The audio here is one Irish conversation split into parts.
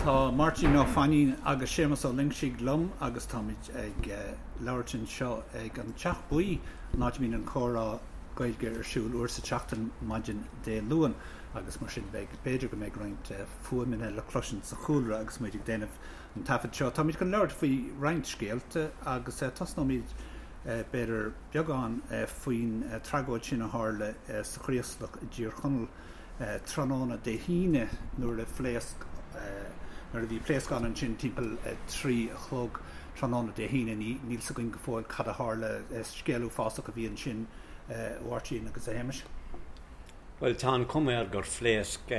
Tá Máirtín Ó Fainín agus Séamus Ó Loingsigh liom agus táimid ag labhairt anseo ag an Teach Buí, an áit a mbíonn an Comhrá Gaeilge ar siúl uair sa tseachtain maidin Dé Luain agus mar sin beidh, b'fhéidir go mbeidh roinnt fuaimeanna le cloisint sa chúlra agus muid ag déanamh an taifead seo. Táimid chun labhairt faoi roinnt scéalta agus tosnóimid b'fhéidir beagán faoin tragóid sin a tharla sa Chraoslach i dTír Chonaill tráthnóna Dé hAoine nuair a phléasc, nuair a bhí pléascán ansin timpeall 3 a chlog tráthnóna Dé hAoine. Níl 'fhios againn go fóill cad a tharla. Scéal uafásach a bhí ansin a Mháirtín agus a Shéamais. Bhuel, tá an chuma air gur phléasc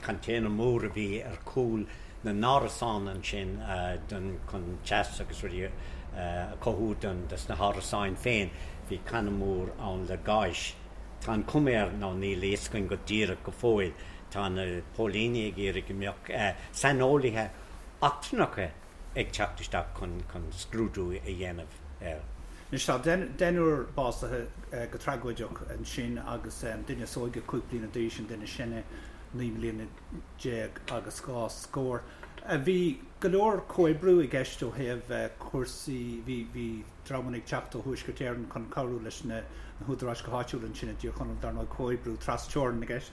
container mór a bhí ar chúl na n-árasán ansin chun teas agus rudaí a chothú dos na hárasáin féin. Bhí canna mór ann le gáis. Tá an chuma air, nó níl a fhios againn go díreach go fóill, tá na póilíní ag iarraidh go mbeadh saineolaithe eachtrannacha ag teacht isteach chun scrúdú a dhéanamh air. Anois tá deichniúr básaithe go tragóideach ansin agus an duine is óige 5 bliana d'aois, an duine is sine 19 mbliana agus dhá scór. Bhí go leor comhoibriú i gceist ó thaobh cúrsaí, bhí bhí dreamanna ag teacht ó Thuaisceart Éireann chun cabhrú leis na húdaráis go háitiúil ansin i dTír Chonaill, dar ndóigh comhoibriú tras-teorann i gceist.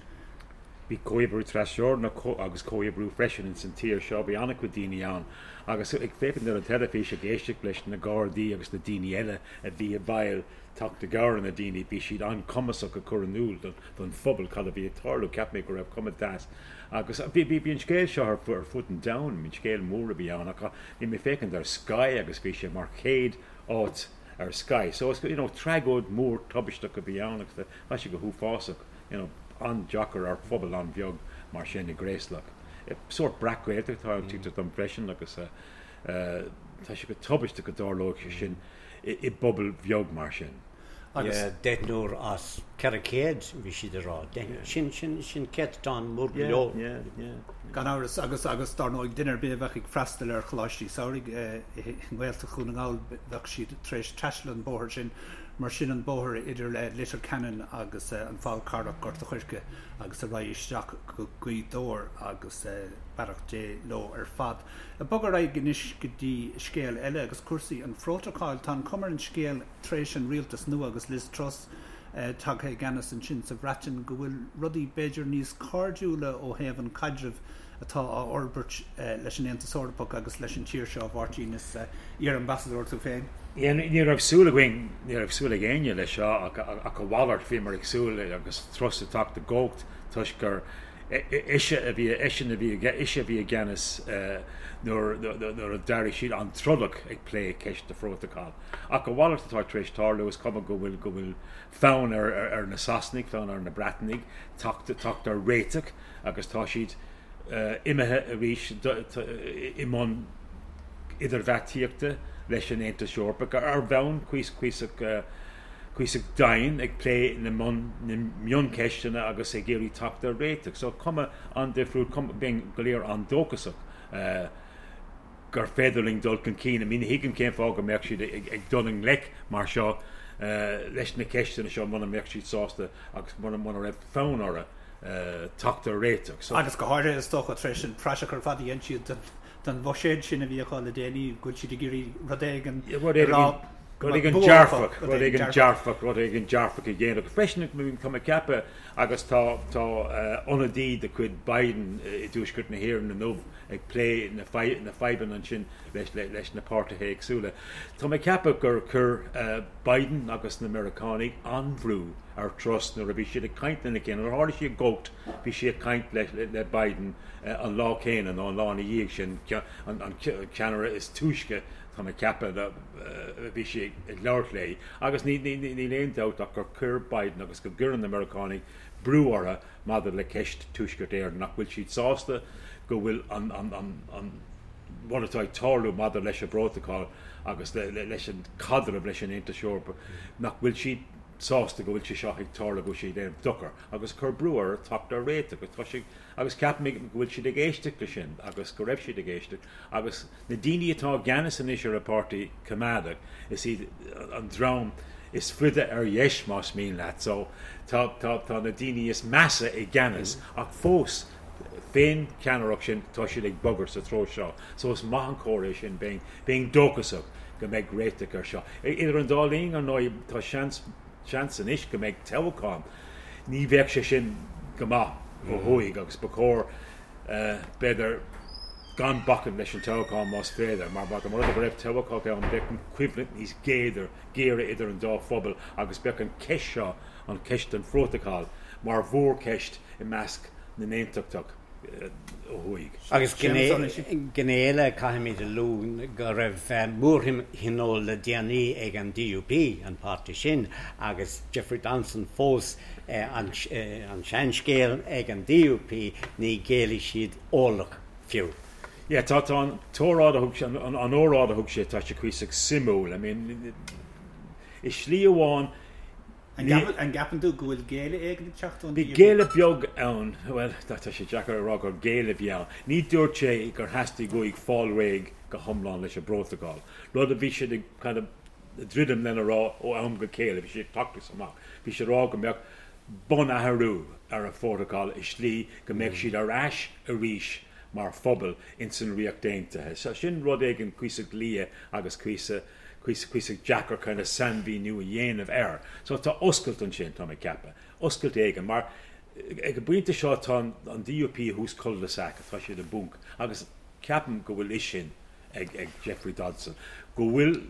Bhí comhoibriú trasteorann agus comhoibriú freisin ins an tír seo. Bhí an-chuid daoine ann agus ag féachaint ar an teilifís ag éisteacht leis na Gardaí agus na daoine eile a bhí i bhfeighil teacht i gcabhair ar na daoine, bhí siad an-chumasach ag cur in iúl don phobal cad a bhí ag tarlú. Cheap mé go raibh cuma deas agus bhí bhí an scéal seo ar fud an domhain, bhí an scéal mór a bhí ann ach bhí mé ag féachaint ar Sky agus bhí sé mar chéad áit ar Sky. So you know tragóid mór tubaisteach a bhí ann agus tá sé go huafásach. you know, an-deacair ar phobal an-bheag mar sin i gCraoslach. Sórt breac-Ghaeltacht atá ann, tuigtear dom freisin, agus tá sé go tubaisteach go dtarlódh sé sin i bpobal bheag mar sin. Agus deichniúr as 400, bhí siad ag rá. Sin, sin, sin céatadán mór go leor. Yeah, yeah, yeah. Gan amhras, agus, agus dar ndóigh, duine ar bith a bheadh ag freastal ar choláistí samhraidh i nGaeltacht Dhún na nGall, bheadh siad tar éis taisteal an bóthar sin. Mar sin an bóthar idir Leitir Ceanainn agus an Fál Carrach, Gort a' Choirce agus ar aghaidh isteach go Gaoth Dobhair agus beannacht Dé leo ar fad. Ag bogadh ar aghaidh anois go dtí scéal eile agus cúrsaí an phrótacail. Tá an chuma ar an scéal tar éis an rialtas nua agus Liz Truss tagtha i gceannas ansin sa Bhreatain go bhfuil rudaí b'fhéidir níos cairdiúla ó thaobh an caidrimh atá á fhorbairt leis an Aontas Eorpach agus leis an tír seo, a Mháirtín, is iar-ambasadóir tú féin. Ní raibh súil againn, ní raibh súil ag éinne leis seo ach a mhalairt, bhíomar ag súil agus Truss ag teacht i gcumhacht toisc gur ise a bhí, eisean a bhí, ise a bhí i gceannas nuair a d'éirigh siad an-trodach ag plé ceist an phrótacail. Ach a mhalairt atá tar éis tarlú, is cuma go bhfuil, go bhfuil fonn ar na Sasanaigh, fonn ar na Breatanaigh teacht, teacht ar réiteach. agus tá siad imithe arís i mbun idirbheartaíochta leis an Aontas Eorpach ar bhonn cuíosach cuíosach dian ag plé na mioncheisteanna agus ag iarraidh teacht ar réiteach. So cuma an-difriúil, cuma, bheinn go léir an-dóchasach gur féidir linn dul chun cinn. I mean, ní thuigim cén fáth go mbeadh siad ag dul i ngleic mar seo leis na ceisteanna seo muna mbeadh siad sásta agus muna raibh fonn orthu teacht ar réiteach. So. Agus go háirithe, is dócha, tar éis an praiseach ar fad a dhein siad den bhuiséad sin a bhí acu le déanaí, go bhfuil siad ag iarraidh rud éigin a rá go rud éigin dearfach, rud éigin dearfach, rud éigin dearfach a dhéanamh. Freisin, tá mé ag ceapadh, agus tá tá ionadaí de chuid Biden i dTuaisceart na hÉireann inniu ag plé na fadhbanna ansin leis leis na páirtithe éagsúla. Tá mé ag ceapadh gur chuir Biden agus na Meiriceánaigh an-bhrú ar Truss nuair a bhí siad ag caint lena chéile. Nuair a tharla sí i gcumhacht, bhí sí ag caint le Biden an lá céanna nó an lá ina dhiaidh sin, an ceannaire is túisce, tá mé ag ceapadh, a bhí sí ag labhairt léi. Agus níl aon dabht ach gur chuir Biden agus go gcuireann na Meiriceánaigh brú orthu maidir le ceist Tuaisceart Éireann, nach bhfuil siad sásta go bhfuil an rud atá ag tarlú maidir leis an bprótacal agus leis an caidreamh leis an Aontas Eorpach, nach bhfuil siad sásta go bhfuil sé seo ag tarlú, go bhfuil sé ag déanamh dochar agus cur brú orthu teacht ar réiteach agus tá sé agus ceapaim go bhfuil siad ag éisteacht leis sin agus go raibh siad ag éisteacht agus na daoine atá i gceannas anois ar an bPáirtí Coimeádach is iad an dream is faide ar dheis más mian leat so tá tá tá na daoine is measa i gceannas ach fós. Fén cheannaireacht sin tá siad ag bogadh sa treo seo. So is maith an comhartha é sin, bheinn, bheinn dóchasach go mbeidh réiteach ar seo. Idir an dá linn, ar ndóigh, tá seans, seans anois go mbeidh toghchán. Ní bheadh sé sin go maith ó thuaidh agus ba chóir, b'fhéidir, gan bacaint leis an toghchán más féidir, mar dá mba rud é go raibh toghchán ann bheadh an choimhlint níos géire, géire idir an dá phobal agus bheadh an cheist seo, an cheist den phrótacal, mar mhórcheist i measc na n-aontachtach ó thuaidh. Agus gné eile, caithfimid a lua go raibh mórthionól le déanaí ag an DUP, an páirtí sin, agus Jeffrey Donaldson fós an seanscéal ag an DUP, ní ghéillfidh siad orlach fiú. Yeah, tá tá an t-óráid a thug sé, an óráid a thug sé, tá sé cuíosach suimiúil. I mean, i slí amháin, An gceapann tú go bhfuil géilleadh éigin ag teacht ón Bhí DUP? géilleadh beag ann, bhuel, tá sé deacair a rá gur géilleadh a bhí ann. Ní dúirt sé gur theastaigh uaidh fáil réidh go hiomlán leis an bprótacal, rud a bhí siad ag kind of druidim lena rá ó am go chéile, bhí sé ag teacht amach, bhí sé ag rá go mbeadh bunathrú ar an phrótacal i slí go mbeadh siad ar ais arís mar phobal ins an Ríocht Aontaithe. So sin rud éigin cuíosach liath agus cuíosach cuíosach deacair kind of sainmhíniú a dhéanamh air. So tá oscailt ansin, tá mé ag ceapadh. Oscailt éigin, mar ag an bpointe seo tá an DUP i dtús cul-de-sac, tá siad i bponc agus ceapaim go bhfuil fhios sin ag ag Jeffrey Donaldson go bhfuil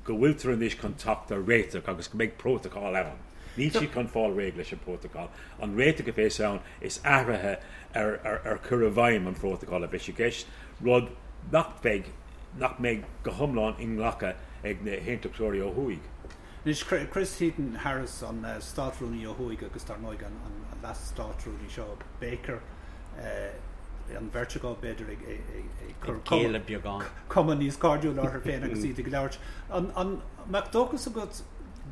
go bhfuiltear anois chun teacht ar réiteach agus go mbeidh prótacal ann. Níl siad chun fáil réidh leis an bprótacal. An réiteach a bheas ann is athruithe ar ar ar chur i bhfeidhm an phrótacail a bheas i gceist, rud nach bheidh nach mbeidh go hiomlán inghlactha ag na haontachtóirí ó thuaidh. Anois, Chris Heaton-Harris, an Státrúnaí ó thuaidh agus dar ndóigh an Leas-Státrúnaí seo, Baker, an bheirt acu, b'fhéidir, ag cur cuma níos cairdiúla orthu féin agus iad ag labhairt. An mbeadh dóchas agat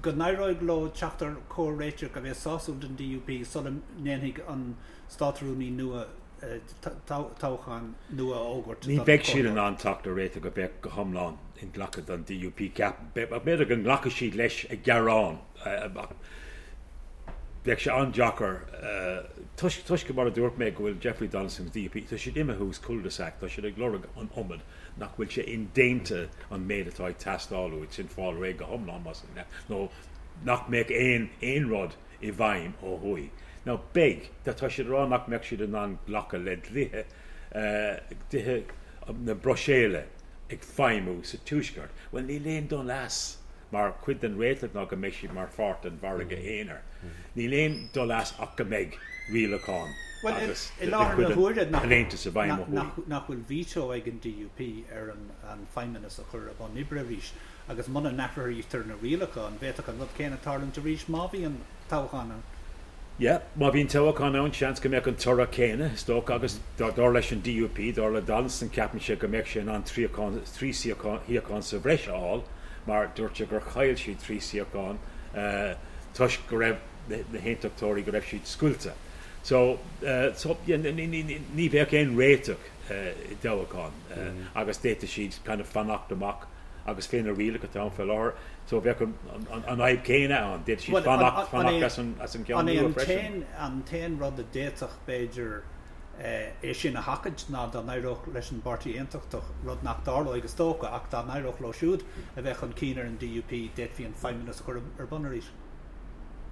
go n-éireoidh leo teacht ar chomhréiteach a bheas sásúil don DUP sula ndéanfaidh an Státrúnaí nua toghchán nua a fhógairt Ní bheidh siad in ann teacht ar réiteach a bheadh go hiomlán inghlactha don DUP, ceapaim. B'fhéidir go nglacfaidh siad leis a ghearán ach bheadh sé an-deacair toisc, toisc mar a dúirt mé, go bhfuil Jeffrey Donaldson agus DUP, tá siad imithe thuas cul-de-sac, tá siad ag lorg an iomad nach bhfuil sé indéanta an méid atá ag teastáil uait sin fáil réidh go hiomlán más ea nó nach mbeadh aon aon rud i bhfeidhm ó thuaidh. Now beidh, tá siad ag rá nach mbeadh siad in ann glacadh le dlíthe, dlíthe na Bruiséile ag feidhmiú sa Tuaisceart. Bhuel níl aon dul as, mar chuid den réiteach ná go mbeidh siad mar pháirt den mhargadh aonair. Níl aon dul as ach go mbeidh rialacháin agus de chuid an Aontais i bhfeidhm ó thuaidh. Nach bhfuil veto ag an DUP ar an Feidhmeannas a chur i bun oibre arís? Agus muna n-athraítear na rialacha, an bhféadfadh an rud céanna tarlúint arís má bhíonn toghchán ann? Yeah, má bhíonn toghchán ann, seans go mbeadh an toradh céanna, is dócha, agus dar leis an DUP, dar le Donaldson, ceapann sé go mbeadh sé in ann trí shuíochán sa bhreis a fháil, mar dúirt sé gur chaill siad trí shuíochán toisc go raibh na haontachtóirí, go raibh siad scoilte. So, so yeah, ní bheadh aon réiteach i dtoghchán agus d'fhéadfadh siad kind of fanacht amach agus fé na rialacha atá ann fé láthair, so bheadh an fhadhb chéanna ann, d'fhéadfadh siad fanacht, fanacht as an, as an gceann nua freisin. An t-aon rud a d'fhéadfadh, b'fhéidir, é sin a sheachaint ná dá n-éireodh leis an bPáirtí Aontachtach, rud nach dtarlóidh is dócha, ach dá n-éireodh leo siúd a bheith chun cinn ar an DUP, d'fhéadfaí an Feidhmeannas a chur ar bun arís.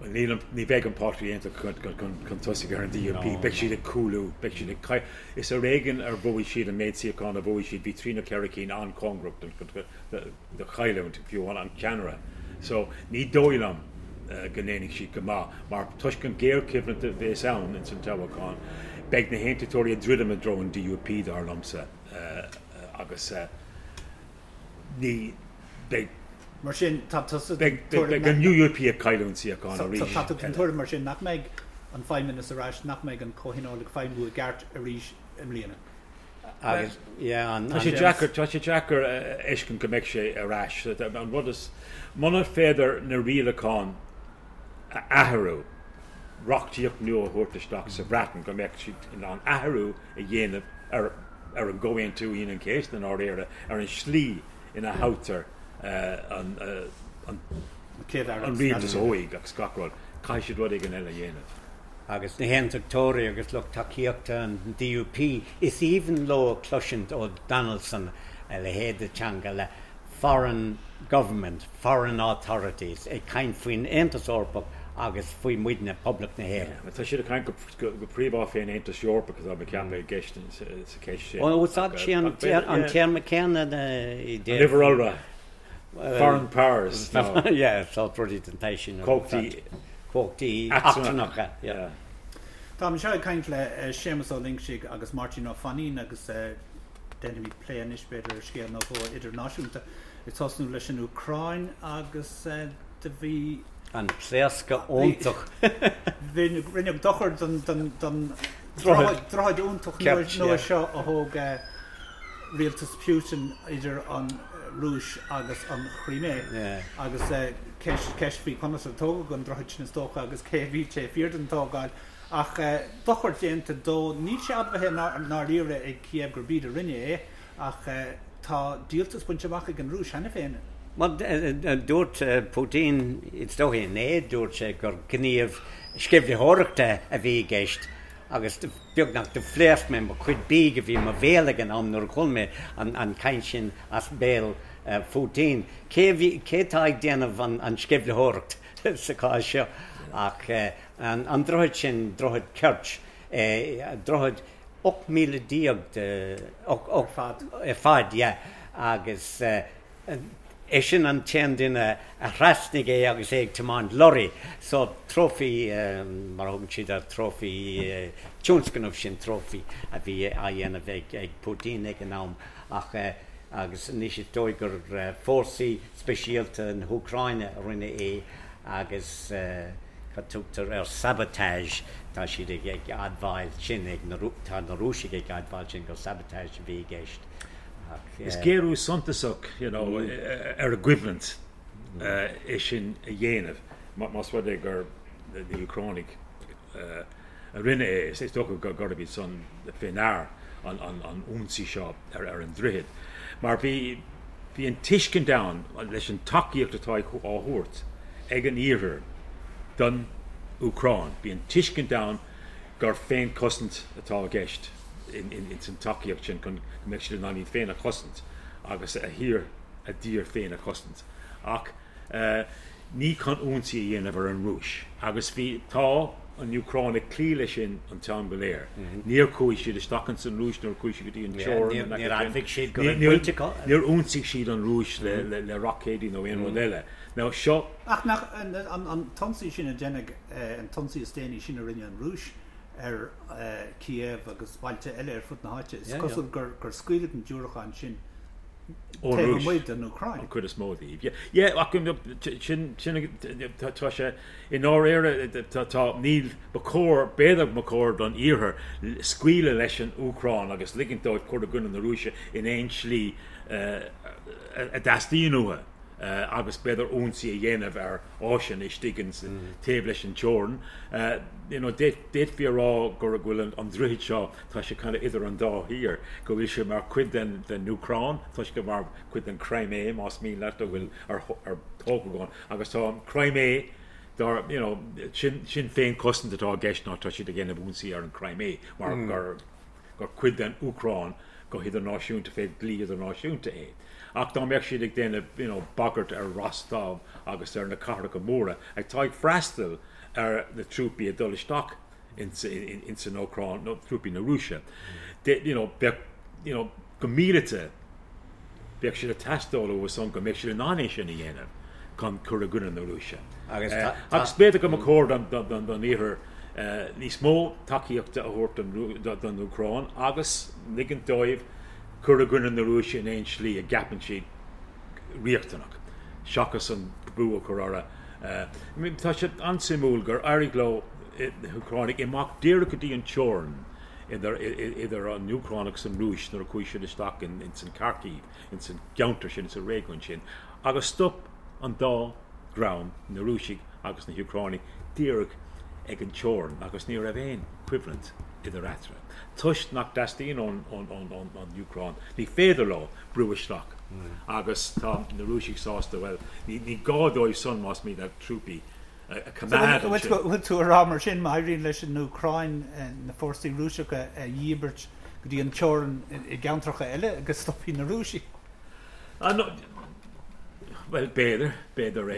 Bhuel, níl an, ní bheidh an Páirtí Aontachtach chun tosaigh ar an DUP, beidh siad ag cúlú, beidh siad ag, is ar éigean ar bhuaigh siad an méid suíochán a bhuaigh siad, bhí trí nó ceithre cinn an-chóngarach do chailliúint, fiú amháin an ceannaire. So, ní dóigh liom go ndéanfaidh siad go maith, mar toisc an ghéarchoimhlint a bheas ann ins an toghchán, beidh na hAontachtóirí ag druidim i dtreo an DUP, dar liomsa, agus ní beidh. Mar sin, tá tusa den tuairim. Beidh an UUP ag cailliúint suíochán arís. Tá tú den tuairim mar sin nach mbeidh an Feidhmeannas ar ais, nach mbeidh an Comhthionól ag feidhmiú i gceart arís i mbliana. Agus, yeah, an. Tá sé deacair, tá sé deacair a fheiscint go mbeidh sé ar ais. An rud is, muna féidir na rialacháin a athrú, reachtaíocht nua a thabhairt isteach sa Bhreatain go mbeadh siad in ann athrú a dhéanamh ar ar an gComhaontú Aoine an Chéasta i ndáiríre, ar an slí ina thoghtar an rialtas ó thuaidh agus gach rud. Caithfidh siad rud éigin eile a dhéanamh. Agus na hAontachtóirí agus lucht tacaíochta an DUP, is aoibhinn leo cloisint ó Donaldson a leithéid de teanga le foreign government, foreign authorities ag caint faoin Aontas Eorpach agus faoi muidne, Poblacht na hÉireann. Tá siad ag caint go príomha fén Aontas Eorpach atá mé ag ceapadh i gceist sa cheist sin. Úsáid sí an téarma céanna i dtaobh. An uimhir iolra. Foreign powers. Yeah, sórt rudaí den tsaghas sin. Cumhachtaí. Cumhachtaí eachtrannacha, yeah. Táim anseo ag caint le Séamus Ó Loingsigh agus Máirtín Ó Fainín agus déanfaimid plé anois b'fhéidir ar scéal nó dhó idirnáisiúnta. Ag tosnú leis an Úcráin agus do bhí. An pléascadh iontach. Rinneadh dochar don droichead iontach nua seo a thóg rialtas Putin idir an Rúis agus an Chrimé agus ceist faoi conas a tógadh an droichead sin is dócha agus cé a bhí taobh thiar den tógáil. Ach dochar déanta dó. Níl sé admhaithe i ndáiríre ag Kiev gurb iad a rinne é ach tá díoltas bainte amach ag an Rúis cheana féin. Bhuel, dúirt Putin, is dóigh inné, dúirt sé gur gníomh sceimhlitheoireachta a bhí i gceist agus beagnach do phléasc mé mo chuid bídh a bhí i mo bhéal ag an am nuair a chuala mé an chaint sin as béal Phutin. Cé a bhí, cé atá ag déanamh an sceimhlitheoireacht sa chás seo ach an droichead sin, droichead Kerch, droichead 18 míle de, ar fad, yeah, agus Eisean an t-aon duine a thrasnaigh é agus é ag tiomáint lorry. So, trophy, mar a thugann siad air, trophy, tionscnamh sin, trophy a bhí á dhéanamh ag Putin ag an am. Ach, agus anois is dóigh gur fórsaí speisialta na hÚcráine a rinne é agus cad tugtar air, sabotage, tá siad ag admháil sin, ag na, tá na Rúisigh ag admháil sin gur sabotage a bhí i gceist. Is géarú suntasach you know ar an gcoimhlint é sin a dhéanamh más rud é gur na hÚcránaigh a rinne é. Is dócha gurb iad san fé ndear an ionsaí seo ar an droichead. Mar bhí bhí an tuiscint ann leis an tacaíocht atá á thabhairt ag an Iarthar don Úcráin, bhí an tuiscint ann gur féinchosaint atá i gceist ins an tacaíocht sin chun go mbeadh siad in ann iad féin a chosaint agus a thír, a dtír féin a chosaint. Ach ní chun ionsaí a dhéanamh ar an Rúis. Agus bhí, tá an Úcráin ag cloí leis sin an t-am go léir. Níor chuaigh siad isteach ins an Rúis nuair a chuaigh siad go dtí an teorainn in aice sin. Níor ionsaigh siad an Rúis le roicéidí nó aon rud eile. Now seo. Ach nach an t-ionsaí sin a deineadh, an t-ionsaí is déanaí sin a rinne an Rúis ar Kiev agus bailte eile ar fud na háite, is cosúil gur scaoileadh na diúracáin sin taobh amuigh den Úcráin. An chuid is mó díobh. Yeah, ach sin, sin, tá sé i ndáiríre, tá, níl, ba chóir, b'fhéidir ba chóir don Iarthar scaoileadh leis an Úcráin agus ligint dóibh cur i gcoinne na Rúise in aon slí a dteastaíonn uathu. agus b'fhéidir ionsaí a dhéanamh ar áiseanna istigh ins taobh leis an teorainn. You know, d'fhéadfaí a rá go bhfuil an droichead seo, tá sé kind of idir an dá thír, go bhfuil sé mar chuid den den Úcráin, tá sé mar chuid den Crimea más mian leat, a bhfuil ar ar tógadh ann agus tá an Crimea dar, you know, sin sin féinchosaint atá i gceist ná tá siad ag déanamh ionsaí ar an Crimea mar gur gur cuid den Úcráin go hidirnáisiúnta fé dhlí idirnáisiúnta é. Ach dá mbeadh siad ag déanamh you know bagairt ar Rostov agus ar na cathracha móra atá ag freastal ar na trúpaí ag dul isteach ins ins an Úcráin nó trúpaí na Rúise you know bheadh you know go míleata bheadh siad ag teastáil uathu san go mbeadh siad in ann é sin a dhéanamh chun cur i gcoinne na Rúise. Agus agus b'fhéidir go mba chóir don don don Iarthar níos mó tacaíochta a thabhairt don Úcráin agus ligint dóibh cur i gcoinne na Rúise in aon slí a gceapann siad riachtanach, seachas an brú a chur orthu. Tá sé an-suimiúil gur éirigh leo, na hÚcránaigh, imeacht díreach go dtí an teorainn idir an Úcráin agus an Rúis nuair a chuaigh siad isteach ins an Kharkiv, ins an gceantar sin, ins an réigiún sin, agus stop an dá dhream, na Rúisigh agus na hÚcránaigh, díreach ag an teorainn agus ní raibh aon choimhlint idir eatarthu. Toisc nach dteastaíonn ón Úcráin, ní féidir leo brú isteach agus tá na Rúisigh sásta, bhuel, ní gá dóibh san más mian leo trúpaí. a choimeád ansin. Bhfuil tú a rá mar sin, má éiríonn leis an Úcráin na fórsaí Rúiseacha a dhíbirt go dtí an teorainn i gceantracha eile go stopfaidh na Rúisigh? Bhuel, b'fhéidir, b'fhéidir é.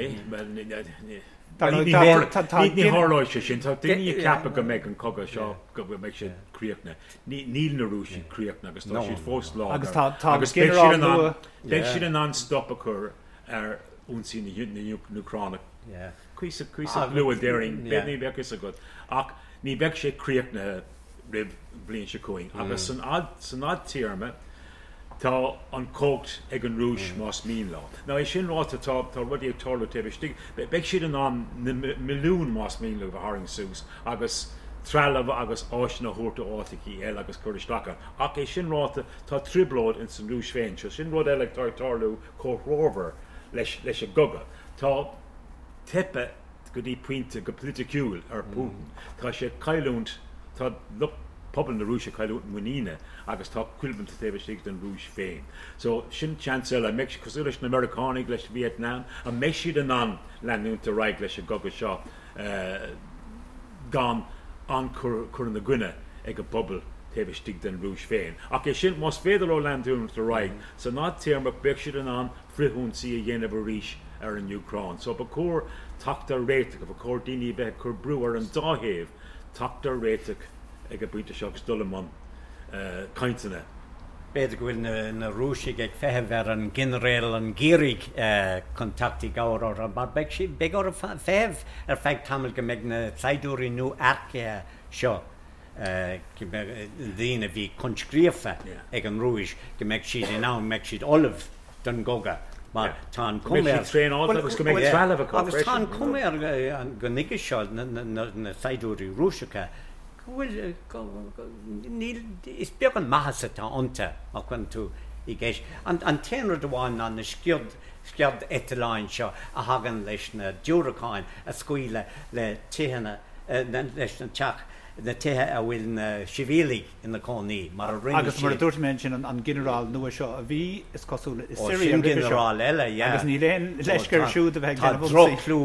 Ní tharlóidh sé sin. Tá daoine ag ceapadh go mbeidh an cogadh seo, go mbeidh sé críochnaithe. Níl na Rúisigh críochnaithe agus tá siad fós láidir. Agus beidh siad in ann stop a chur ar ionsaí na nÚcránach. Cuíosach luath déarfainn, ní bheadh fhios agat. Ach ní bheidh sé críochnaithe roimh an bhliain seo chugainn. Agus san fhadtéarma, tá an chumhacht ag an Rúis más mian leo. Now é sin ráite, tá rudaí ag tarlú taobh istigh. Beidh siad in ann na milliúin más mian leo a tharraingt suas agus trealamh agus áiseanna a thabhairt ó áiteachaí eile agus cur isteach ann. Ach é sin ráite, tá trioblóid ins an Rúis féin. So sin rud eile atá ag tarlú comhthreomhar leis an gcogadh. Tá teipthe go dtí pointe go politiciúil ar Putin. Tá sé ag cailliúint, tá lucht pobal na Rúise ag cailliúint muiníne agus tá coimhlint taobh istigh den Rúis féin. So sin seans eile. An mbeidh, cosúil leis na Meiriceánaigh leis Vietnam, an mbeidh siad in ann leanúint ar aghaidh leis an gcogadh seo gan an-chur ina gcoinne ag an bpobal taobh istigh den Rúis féin. Ach é sin, más féidir leo leanúint ar aghaidh, san fhadtéarma beidh siad in ann frithionsaí a dhéanamh arís ar an Úcráin. So ba chóir teacht ar réiteach, ba chóir daoine a bheith ag cur brú ar an dá thaobh teacht ar réiteach ag an bpointe seo agus dul i mbun cainteanna. B'fhéidir go bhfuil na Rúisigh ag feitheamh ar an ghinearál an gheimhridh chun teacht i gcabhair orthu mar beidh siad, beidh orthu feitheamh ar feadh tamaill go mbeidh na saighdiúirí nua-earcaithe seo daoine a bhí coinscríofa ag an Rúis, go mbeidh siad in ann, go mbeidh siad ullamh don gcogadh mar tá an chuma air. Traenáilte agus go mbeidh trealamh acu freisin. Agus tá an chuma air go nuige seo, na saighdiúirí Rúiseacha, go bhfuil, níl, is beag an maitheas atá iontu má chuireann tú i gceist. An t-aon rud amháin ná na sciod, sciodeitleáin seo a thagann leis na diúracáin a scaoileadh le tithe, leis na teach, na tithe a bhfuil na sibhialaigh ina cónaí, mar a rinne Agus mar a dúirt mé ansin, an ginearál nua seo a bhí, is cosúil, i Siria roimhe seo. Ó, sin ginearál eile, yeah. Agus níl aon leisce air siúd a bheith ag déanamh ionsaí. Tá droch-chlú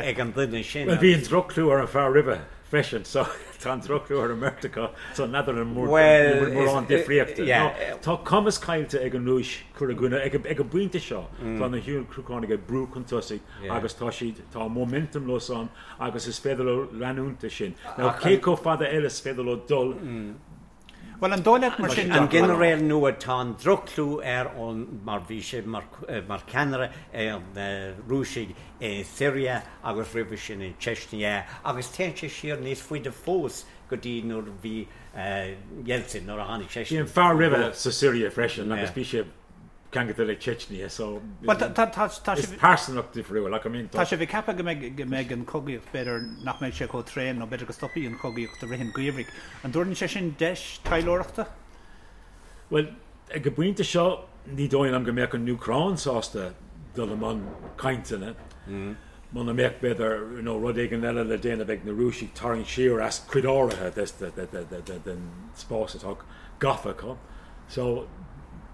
ag an duine sin. Bhuel, bhí an droch-chlú ar an fear roimhe freisin, so tá an droch-chlú ar an mbeirt acu, so n'fheadar an bhfuil mórán difríochta. Tá cumas caillte ag an Rúis cur i gcoinne, ag an bpointe seo, tá na hÚcránaigh ag brú chun tosaigh agus tá siad, tá momentum leo san agus is féidir leo leanúint de sin. Now cé chomh fada eile is féidir leo dul? Bhuel, an dóigh leat mar sin, An ginearál nua, tá an droch-chlú air ón mar bhí sé mar cheannaire ar na Rúisigh i Siria agus roimhe sin in Chechnya agus téann sé siar níos faide fós go dtí nuair a bhí Yeltsin, nuair a tháinig seisean. Bhí an fear roimhe sa Siria freisin agus bhí sé ceangailte le Chechnya so is pearsanacht difriúil ach I mean tá sibh ag ceapadh go mbeidh go mbeidh an chogaíocht b'fhéidir nach mbeidh sé chomh tréan nó b'fhéidir go stopfaidh an chogaíocht i rith an gheimhridh. An dtabharann sé sin deis taidhleoireachta? Bhuel ag an bpointe seo ní dóigh liom go mbeadh an Úcráin sásta dul i mbun cainteanna muna mbeadh b'fhéidir you know rud éigin eile le déanamh ag na Rúisigh tarraingt siar as cuid áirithe den spás atá gafa acu. So,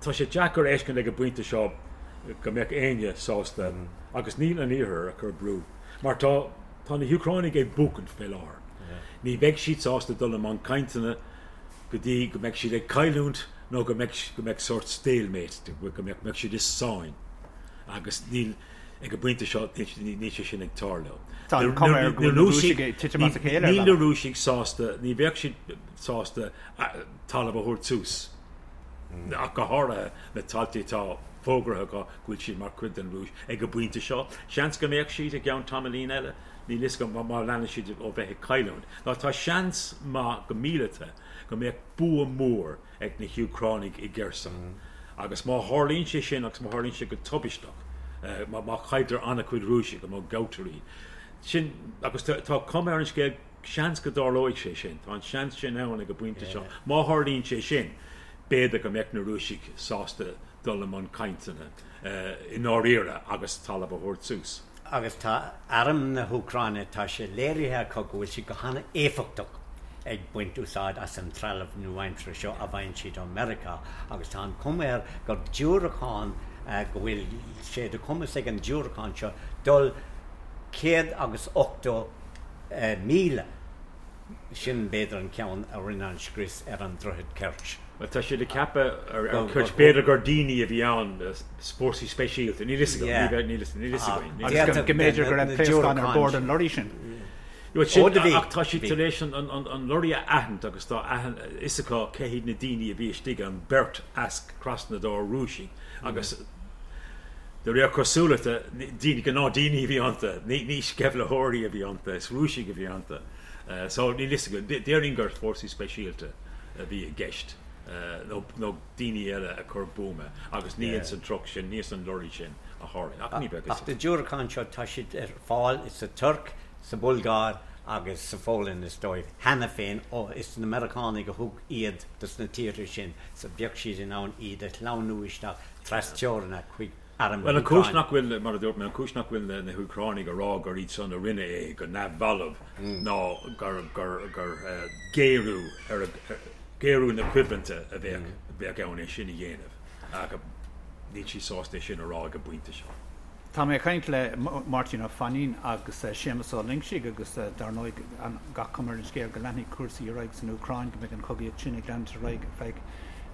tá sé deacair a fheiscint ag an bpointe seo go mbeadh éinne sásta, agus níl an Iarthar ag cur brú, mar tá tá na hÚcránaigh ag buachaint fé láthair. Ní bheidh siad sásta dul i mbun cainteanna go dtí go mbeidh siad ag cailliúint nó go mbeidh go mbeidh sórt stalemate, go mbeadh mbeadh siad i sáinn. Agus níl, ag an bpointe seo, níl sé sin ag tarlú. Tá an chuma air go bhfuil na Rúisigh ag titim as a chéile ar Níl na Rúisigh sásta, ní bheadh siad sásta talamh a thabhairt suas, ach go háirithe na tailte atá fógraithe acu go bhfuil siad mar chuid den Rúis ag an bpointe seo. Seans go mbeadh siad i gceann tamaillín eile, níl fhios agam, má leanann siad ó bheith ag cailliúint. Ná tá seans maith go míleata go mbeadh bua mór ag na hÚcránaigh i gCerson. Agus má tharlaíonn sé sin, agus má tharlaíonn sé go tubaisteach, má chailltear an-chuid Rúisigh, má gabhtar iad, sin, agus tá cuma ar an scéal, Seans go dtarlóidh sé sin. Tá an seans sin ann ag an bpointe seo. Má tharlaíonn sé sin, b'fhéidir go mbeadh na Rúisigh sásta dul i mbun cainteanna i ndáiríre agus talamh a thabhairt suas. Agus tá arm na hÚcráine, tá sé léirithe acu go bhfuil siad go han-éifeachtach ag baint úsáid as an trealamh nua-aimseartha seo a bhfaigheann siad ó Mheiriceá agus tá an chuma air gur diúracán, go bhfuil sé de chumas ag an diúracán seo dul. 180,000. Sin b'fhéidir an ceann a rinne an scrios ar an droichead Kerch. Bhuel, tá siad ag ceapadh ar Kerch, b'fhéidir gur daoine a bhí ann, fórsaí speisialta, níl fhios agam, níl fhios againn. Agus go mb'fhéidir go raibh pléascáin ar bord an lorry sin. Bhuel, sin, ach tá siad tar éis an lorry a aithint agus tá fhios acu cé hiad na daoine a bhí istigh ann, beirt as Krasnodar, Rúisigh, agus de réir cosúlachta, daoine, gnáthdaoine a bhí iontu, ní sceimhlitheoirí a bhí iontu, is Rúisigh a bhí iontu. So, níl fhios agam. Déarfainn gur fórsaí speisialta a bhí i gceist, nó daoine eile a chuir buama, agus ní ins an truck sin, ní ins an lorry sin a tharla. Ach ní bheadh fhios Ach na diúracáin seo, tá siad ar fáil sa Tuirc, sa Bhulgáir agus sa Pholainn, is dóigh, cheana féin. Ó, is na Meiriceánaigh a thug iad dos na tíortha sin, so bheadh siad in ann iad a shleamhnú isteach trasteorann chuig arm na Bhuel, an chúis nach bhfuil, mar a dúirt mé, an chúis nach bhfuil na hÚcránaigh ag rá gur iad san a rinne é go neamhbhalbh ná gur, gur, gur géarú ar a, géarú na coimhlinte a bheadh, bheadh ann é sin a dhéanamh. Ach níl siad sásta é sin a rá ag an bpointe seo. Tá mé ag caint le Máirtín Ó Fainín agus Séamus Ó Loingsigh agus dar ndóigh gach cuma ar an scéal go leanfaidh cúrsaí ar aghaidh san Úcráin, go mbeidh an chogaíocht sin ag leanúint ar aghaidh ar feadh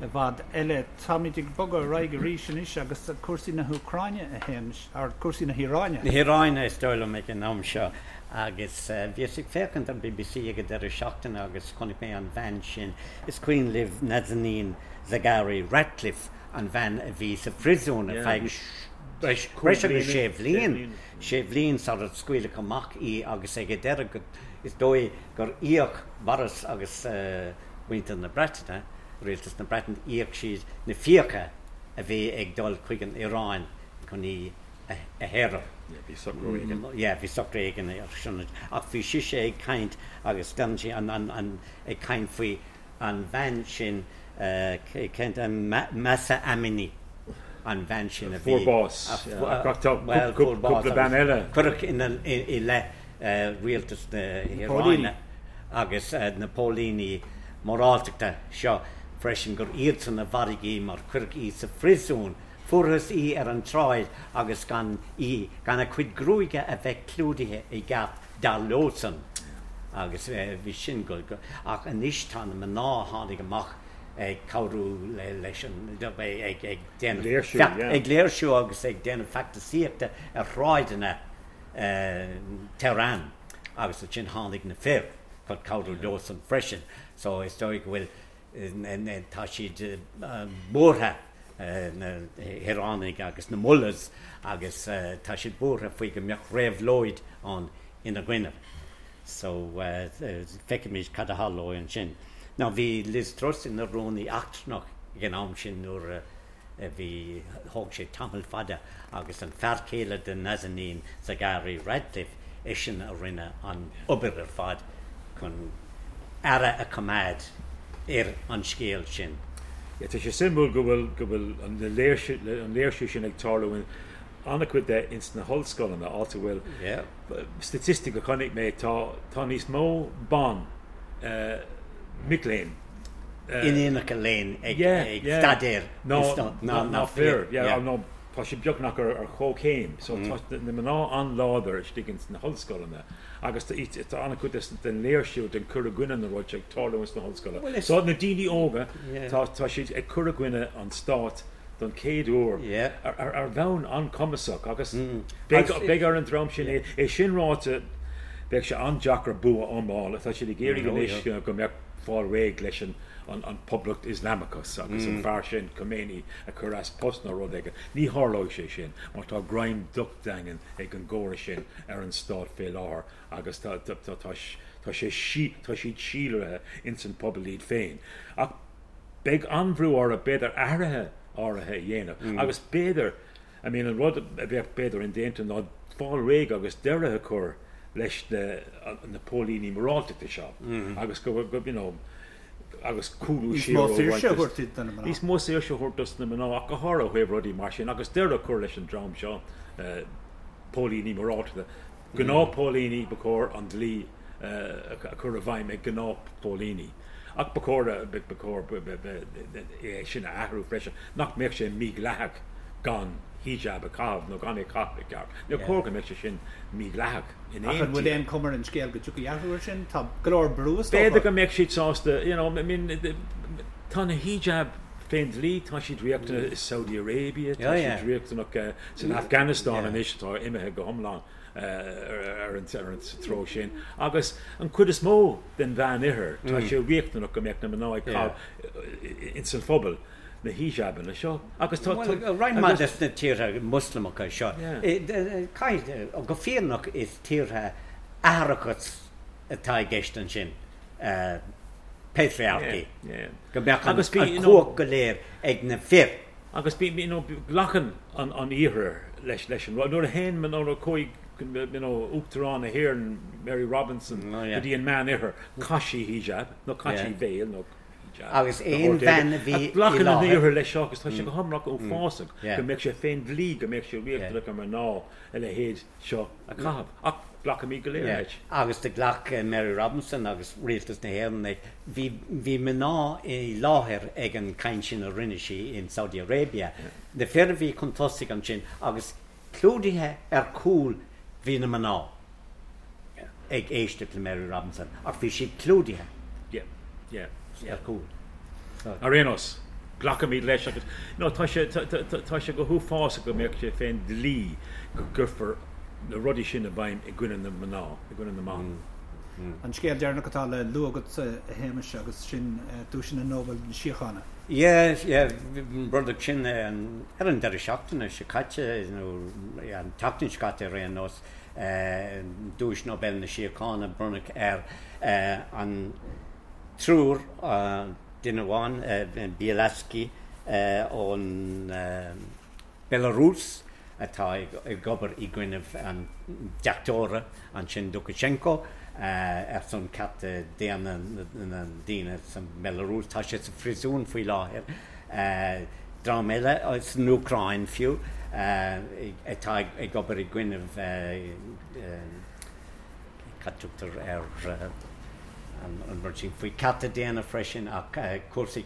i bhfad eile. Táimid ag bogadh ar aghaidh arís anois agus cúrsaí na hÚcráine, a Shéamais, or cúrsaí na hIaráine. Na hIaráine is dóigh liom ag an am seo agus bhíos ag féachaint ar bbc ag an deireadh seachtaine agus chonaic mé an bhean sin, is cuimhin libh Nazanin Zaghari Ratcliffe, an bhean a bhí sa phriosún ar feadh breis agus sé bhliain, sé bhliain sar a scaoileadh amach í agus ag an deireadh is dóigh gur íoc Boris agus muintir na Breataine, rialtas na Breataine, íoc siad na fiacha a bhí ag dul chuig an Iaráin chun í a shaoradh. Yeah, bhí socrú éigin. Yeah, bhí socrú éigin ar sin. Ach bhí sise ag caint agus d'fhan sí an, an, an, ag caint faoi an bhean sin, cén t-ainm, Mahsa Amini, an bhean sin a bhí. Fuair bás. Ach tá cúpla bean eile. Cuireadh ina, i leith rialtas na hIaráine agus na póilíní moráltachta seo freisin gur iadsan a mharaigh í mar cuireadh í sa phriosún. Fuarthas í ar an tsráid agus gan í, gan a cuid gruaige a bheith clúdaithe i gceart dar leosan. Agus bhí sin go, ach anois tá na mná a tháinig amach ag cabhrú leis an, ag ag déanamh, ag léirsiú agus ag déanamh feachtasaíochta ar shráideanna Tehran agus ansin tháinig na fir chun cabhrú leosan freisin so is dóigh go bhfuil tá siad buartha na hIaránaigh agus na mullahs agus tá siad buartha faoi go mbeadh réabhlóid ann ina gcoinne so feicfimid cad a tharlóidh ansin. Now bhí Liz Truss ina rúnaí eachtrannach ag an am sin nuair a bhí, thóg sé tamall fada agus an fear céile de Nazanin Zaghari Ratcliffe, eisean a rinne an obair ar fad chun aire a choimeád ar an scéal sin. Yeah, tá sé suimiúil go bhfuil, go bhfuil an léirsiú, an léirsiú sin ag tarlú in an-chuid de ins na hollscoileanna, áit a bhfuil, Yeah. statistic a chonaic mé, tá, tá níos mó ban, eh, mic léinn, in inaice léinn ag staidéar ná fir. Nó tá sé beagnach ar chomhchéim. So tá na mná an-láidir istigh ins na hollscoileanna agus tá an-chuid den léirsiú, den cur i gcoinne na rud seo ag tarlú ins na hollscoileanna. So na daoine óga, tá siad ag cur i gcoinne an stáit don chéad uair ar bhonn an-chumasach agus beidh ar an dream sin é. É sin ráite, beidh sé an-deacair bua iomlán. Tá siad ag iarraidh anois go mbeadh fáil réidh leis an an Poblacht Ioslamachas agus an fear sin, Khomeini, a chur as post nó rud éigin. Ní tharlóidh sé sin mar tá greim docht daingean ag an gcóras sin ar an stát fé láthair agus tá tá sé tá siad síolraithe ins an pobal iad féin. Ach beidh an-bhrú orthu b'fhéidir athruithe áirithe a dhéanamh agus b'fhéidir, I mean an rud a bheadh b'fhéidir indéanta ná fáil réidh agus deireadh a chur leis na na póilíní moráltachta seo agus go go you know agus cúlú Níos mó saoirse a thabhairt do na mná. Níos mó saoirse a thabhairt dos na mná ach go háirithe ó thaobh rudaí mar sin agus deireadh a chur leis an dream seo póilíní moráltachta. Gnáthphóilíní, ba chóir an dlí a chur i bhfeidhm ag gnáthphóilíní. Ach ba chóir, ba chóir é sin a athrú freisin, nach mbeadh sé mídhleathach gan. hijab a chaitheamh nó gan é a chaitheamh i gceart. Níor chóir go mbeadh sé sin mídhleathach in Ach aon an bhfuil tír. aon chuma ar an scéal go dtiocfaidh athrú air sin? Tá go leor brú is dócha. B'fhéidir go mbeadh siad sásta, you know, I mean, tá na hijab fén dlí, tá siad riachtanach i Saudi Arabia, tá siad riachtanach san Afghanistan anois atá imithe go hiomlán ar an treo sin. Agus an chuid is mó den Mheánoirthear, tá sé riachtanach go mbeadh na mná ag caitheamh ins an phobal na hijabanna seo. Agus tá. Bhuel, roinnt mhaith des na tíortha Moslamacha seo, caithfidh, go fírinneach is tíortha atharachas atá i gceist ansin, patriarchy, go mbeadh an chumhacht go léir ag na fir. Agus bí, you know, glacann an Iarthar leis leis an rud. Nuair a théann, nuair a chuaigh, you know, Uachtarán na hÉireann, Mary Robinson, go dtí an Meán-Oirthear, chaith sí hijab, nó chaith sí veil, nó hijab, Agus aon bhean a bhí i láthair. Glacann an Iarthar leis seo agus tá sé go hiomlán uafásach go mbeadh sé fén dlí, go mbeadh sé riachtanach ar mná a leithéid seo a chaitheamh. Ach glacaimid go léir leis. Agus do ghlac Mary Robinson agus Rialtas na hÉireann é. Bhí, bhí mná i láthair ag an caint sin a rinne sí in Saudi Arabia. Na fir a bhí chun tosaigh ansin agus clúdaithe ar chúl bhí na mná ag éisteacht le Mary Robinson ach bhí siad clúdaithe ar chúl. Ar aon nós, glacaimid leis agus no tá sé tá sé go huafásach go mbeadh sé fén dlí go gcuirfear na rudaí sin i bhfeidhm i gcoinne na mná, i gcoinne na mban. An scéal deireanach atá le lua agat, a Shéamais, agus sin Duaiseanna Nobel na Síochána. Yeah, yeah, bronnadh sin ar an deireadh seachtaine seo caite, nó an tseachtain seo caite ar aon nós, Duais Nobel na Síochána, bronnadh ar an triúr, duine amháin, Bialiatski ón Belarus atá ag obair i gcoinnibh an deachtóra ansin Lukashenko ar son cearta daonna na ndaoine sa mBelarus. Tá sé sa phríosún faoi láthair. Dream eile san Úcráin fiú atá ag obair i gcoinnibh cad tugtar ar an rud sin faoi cearta daonna freisin ach cúrsaí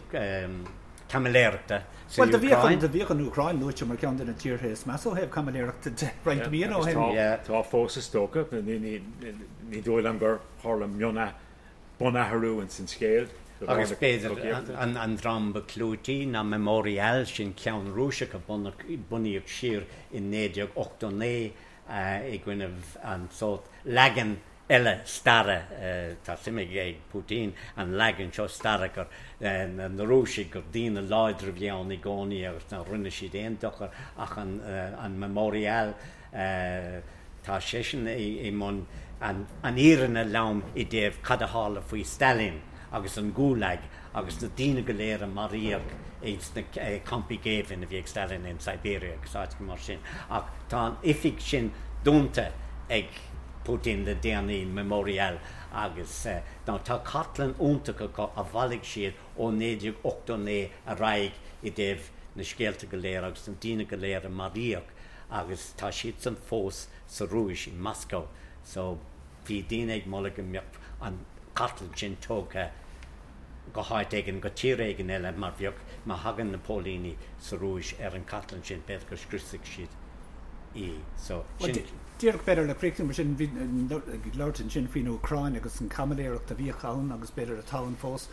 caimiléireachta san Bhuel, do bhíodh an, do bhíodh an Úcráin luaite mar cheann de na tíortha is measa ó thaobh caimiléireachta de roinnt míonna ó shin. Tá fós is dócha. Ní dóigh liom gur tharla bunathrú ins an scéal. Agus b'fhéidir an dream ba chlúití ná Memorial, sin ceann Rúiseach a bunaíodh siar in 1989 i gcoinnibh an sórt leagan eile staire, tá suim ag Putin an leagan seo staire gur na Rúisigh, gur daoine láidre a bhí ann i gcónaí agus nár rinne siad aon dochar ach an Memorial, tá seisean i mbun an fhírinne lom i dtaobh cad a tharla faoi Stalin agus an Gulag agus na daoine go léir a maraíodh ins na campaí géibhinn a bhí ag Stalin in Siberia agus áiteacha mar sin. Ach tá an oifig sin dúnta ag Putin le déanaí, Memorial, agus now tá cartlann iontach acu a bhailigh siad ó 1989 ar aghaidh i dtaobh na scéalta go léir agus na daoine go léir a maraíodh agus tá siadsan fós sa Rúis, i Moscow. So bhí daoine ag moladh go mbeadh an chartlann sin tógtha go háit éigin, go tír éigin eile mar bheadh, má thagann na póilíní sa Rúis ar an chartlann sin, b'fhéidir go scriosfaidh siad í. So, sin. Díreach b'fhéidir le críochnú mar sin, bhí ag labhairt ansin faoin Úcráin agus an chaimiléireacht a bhíodh ann agus b'fhéidir atá ann fós.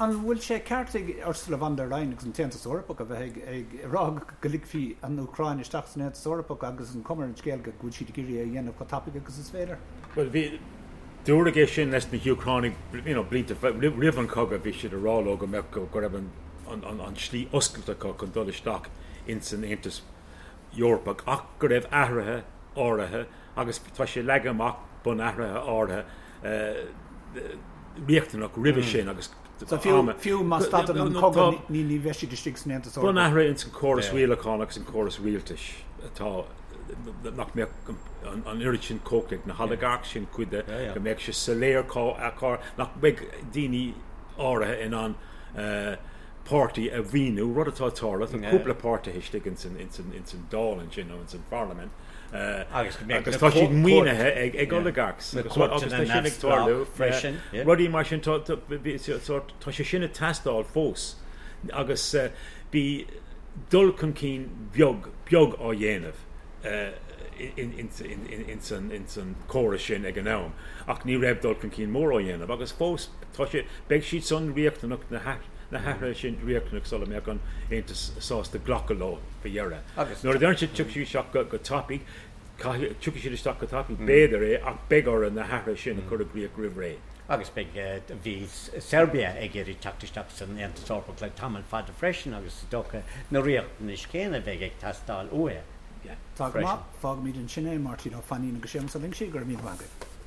An bhfuil sé ceart ag Ursula von der Leyen agus an tAontas Eorpach a bheith ag rá go ligfí an Úcráin isteach san Aontas Eorpach agus an cuma ar an scéal go bhfuil siad ag iarraidh é a dhéanamh chomh tapaidh agus is féidir? Bhuel, bhí, dúradh é sin leis na hÚcránaigh you know, blianta roimh an chogadh, bhí siad ag rá leo go mbeadh, go raibh an, an, an slí oscailte acu chun dul isteach ins an Aontas Eorpach ach go raibh athruithe áirithe agus tá sé leagtha amach bunathruithe áirithe riachtanach roimhe sin agus So fiú má stadann an cogadh ní bheidh siad istigh san Aontas Eorpach. Bunathruithe ins an córas rialacháin agus an córas rialtais atá nach mbeadh an oiread sin cumhachta ag na holigarchs sin cuid de, go mbeadh sé soiléir cá nach mbeidh daoine áirithe in ann páirtí a mhaoiniú, rud atá ag tarlú, tá cúpla páirtithe istigh ins an Dáil ansin nó ins an Pharlaimint. Agus tá siad maoinithe ag oligarchs agus tá sin ag tarlú freisin. Rudaí mar sin, tá sé sin ag teastáil fós agus bhí. dul chun cinn beag, beag á dhéanamh ins an chóras sin ag an am, ach ní raibh dul chun cinn mór á dhéanamh, agus fós tá sé, beidh siad san riachtanach, na hathruithe sin riachtanach sula mbeadh an Aontas sásta glacadh leo faoi dheireadh. Nuair a deireann siad tiocfaidh siad isteach go tapaidh, caithfidh, tiocfaidh siad isteach go tapaidh, b'fhéidir é, ach beidh orthu na hathruithe sin a chur i gcrích roimh ré. Agus beidh, bhí Serbia ag iarraidh teacht isteach san Aontas Eorpach le tamall fada freisin agus is dócha na riachtanais chéanna a bheidh ag teastáil uathu Tá go maith, fágfaimid ansin é, Máirtín Ó Fainín agus Séamus Ó Loingsigh, go raibh míle maith agaibh.